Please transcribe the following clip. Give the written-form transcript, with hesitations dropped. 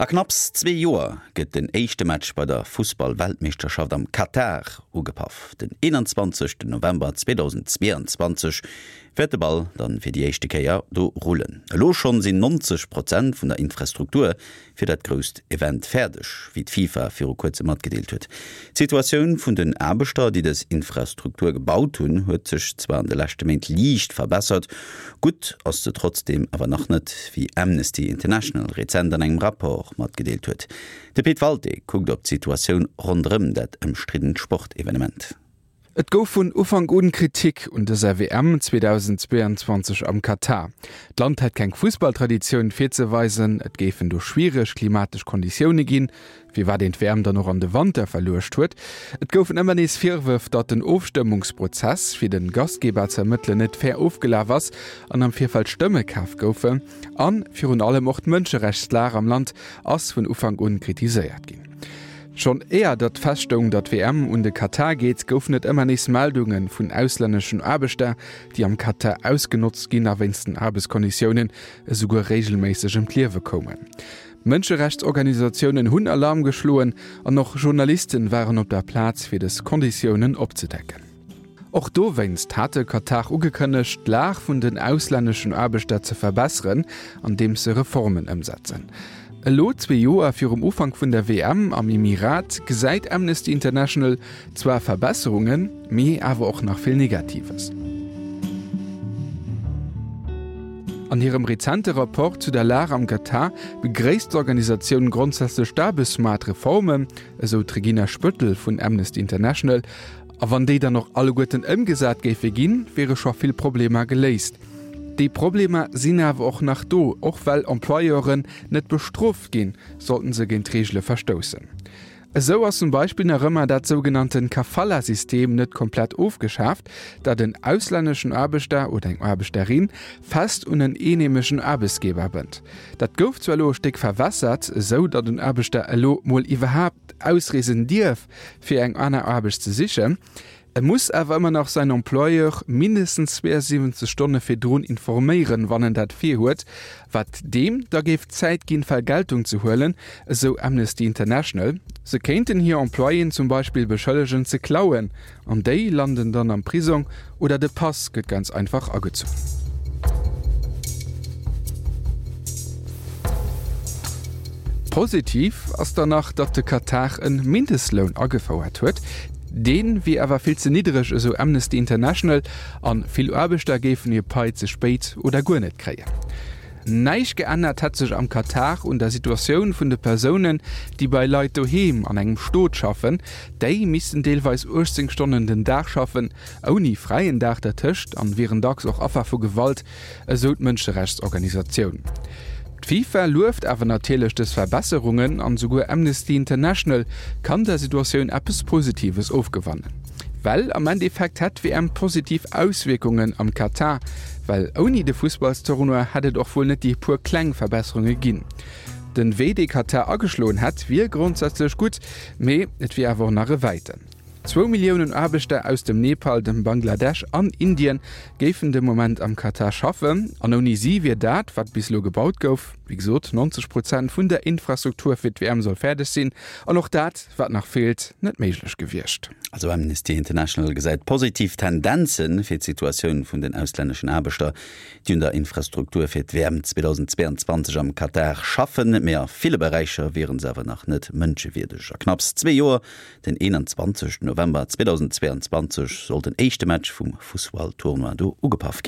A knapps zwee Joer gëtt den éischte Match bei der Fussball-Weltmeeschterschaft am Katar ugepaff. Den 21 November 2022 wäert de Ball dann fir déi éischte Kéier do rullen. Elo schonn sinn 90 Prozent vun der Infrastruktur fir dat grousst Event fäerdeg, wéi d'FIFA viru kuerzem matgedeelt huet. D'Situatioun vun den Aarbechter, déi dës Infrastruktur gebaut hunn, huet sech zwar an de leschte Méint liicht verbessert, Gutt ass se trotzdeem awer nach net, wéi Amnesty International rezent an engem Rapport matgedeelt huet. De Pit Walté kuckt op d'Situatioun ronderëm dat ëmstriddent Sportevenement. Et gouf vun Ufank un Kritik un dëser WM 2022 am Katar. D'Land hätt keng Fussballtraditioun virzeweisen, et géifen do schwiereg klimatesch Konditioune ginn, firwat een d'WM dann och an de Wanter verluecht huet. Et goufen ëmmer nees Virwërf, datt den Ofstëmmungsprozess, fir de Gastgeber ze ermëttelen, net fair ofgelaf ass an am Virfeld Stëmme kaf goufen. A virun allem och d'Mënscherechtslag am Land ass vun Ufank un kritiséiert ginn. Schonn éier datt feststoung, datt d'WM un de Katar geet, goufen et ëmmer nees Meldunge vun auslänneschen Aarbechter, déi am Katar ausgenotzt ginn a wéinst den Aarbechtskonditiounen esouguer reegelméisseg ëm d'Liewe koumen. Mënscherechtsorganisatiounen hunn Alarm geschloen an och Journalisten waren op der Plaz fir des Konditiounen opzedecken. Och dowéinst hat de Katar ugekënnegt, d'Lag vun den auslänneschen Aarbechter ze verbesseren, andeems se Reformen ëmsetzen. Elo, zwee Joer virum Ufank vun der WM am Emirat, gesäit Amnesty International Zwar Verbesserungen, mee awer och nach vill Negatives. An hirem rezente Rapport zu der Lag am Katar begréisst d'Organisatioun grondsätzlech d'Aarbechtsmaartreformen, esou d'Regina Spöttl vun Amnesty International. A wann déi dann och alleguerten ëmgesat géife ginn, wiere scho vill Problemer geléist. Déi Problemer sinn awer och nach do, och well Employeuren net bestrooft ginn, sollten se géint d'Reegele verstoussen. Esou ass zum Beispill nach ëmmer dat sougenannten Kafala-System net komplett ofgeschaaft, dat en auslänneschen Aarbechter oder eng Aarbechterin fest un en eenheemeschen Aarbechtsgeber bënnt. Dat gouf zwar elo e Stéck verwässert, esou datt en Aarbechter elo mol iwwerhaapt ausreesen dierf, fir eng aner Aarbecht ze sichen. E muss awer ëmmer nach säin Employeur mindestens 72 Stonne virdrun informéieren, wann en dat virhuet, wat deem da géif d'Zäit ginn, Vergeltung ze huelen, esou Amnesty International. Se kéinten hir Employéen zum Beispill beschëllegen ze klauen, an déi landen dann am Prisong oder de Pass gëtt ganz einfach agezunn. Positiv ass dann nach, datt de Katar e Mindestloun agefouert huet. Dee wier awer vill ze niddereg, esou Amnesty International, a vill Aarbechter géifen hir Pai ze spéit oder guer net kréien. Näischt geännert hätt sech am Katar un der Situatioun vun de Persounen, déi bei Leit doheem an engem Stot schaffen. Déi missten deelweis 18 Stonnen den Dag schaffen, ouni fräien Dag dertëscht, an wieren dacks och Affer vu Gewalt. esou d'Mënscherechtsorganisatioun. D'FIFA lueft awer natierlech dës Verbesserungen an esouguer Amnesty International kann der Situatioun eppes Positives ofgewannen. Well am Endeffekt hätt d'WM positiv Auswierkungen am Katar, well ouni de Fussballstournoi hätt et och wuel net déi puer kleng Verbesserunge ginn. Den Wee dee Katar ageschloen hätt wier grondsätzlech gutt, mee et wier awer och nach e wäiten. Zwou Milliounen Aarbechter aus dem Nepal, dem Bangladesch an Indien géifen de Moment am Katar schaffen. An ouni si wier dat, wat bis elo gebaut gouf, wéi gesot 90 Prozent vun der Infrastruktur fir d'WM soll fäerdeg sinn, an och dat, wat nach feelt, net méiglech gewiescht. Also Amnesty International gesäit positiv Tendenze fir d'Situatioun vun den auslänneschen Aarbechter, déi un der Infrastruktur fir d'WM 2022 am Katar schaffen. Mee a ville Beräicher wiere se awer nach net mënschewierdeg. A knapps zwee Joer Den 21 November 2022 soll den éischte Match vum Fussballtournoi do ugepaff ginn.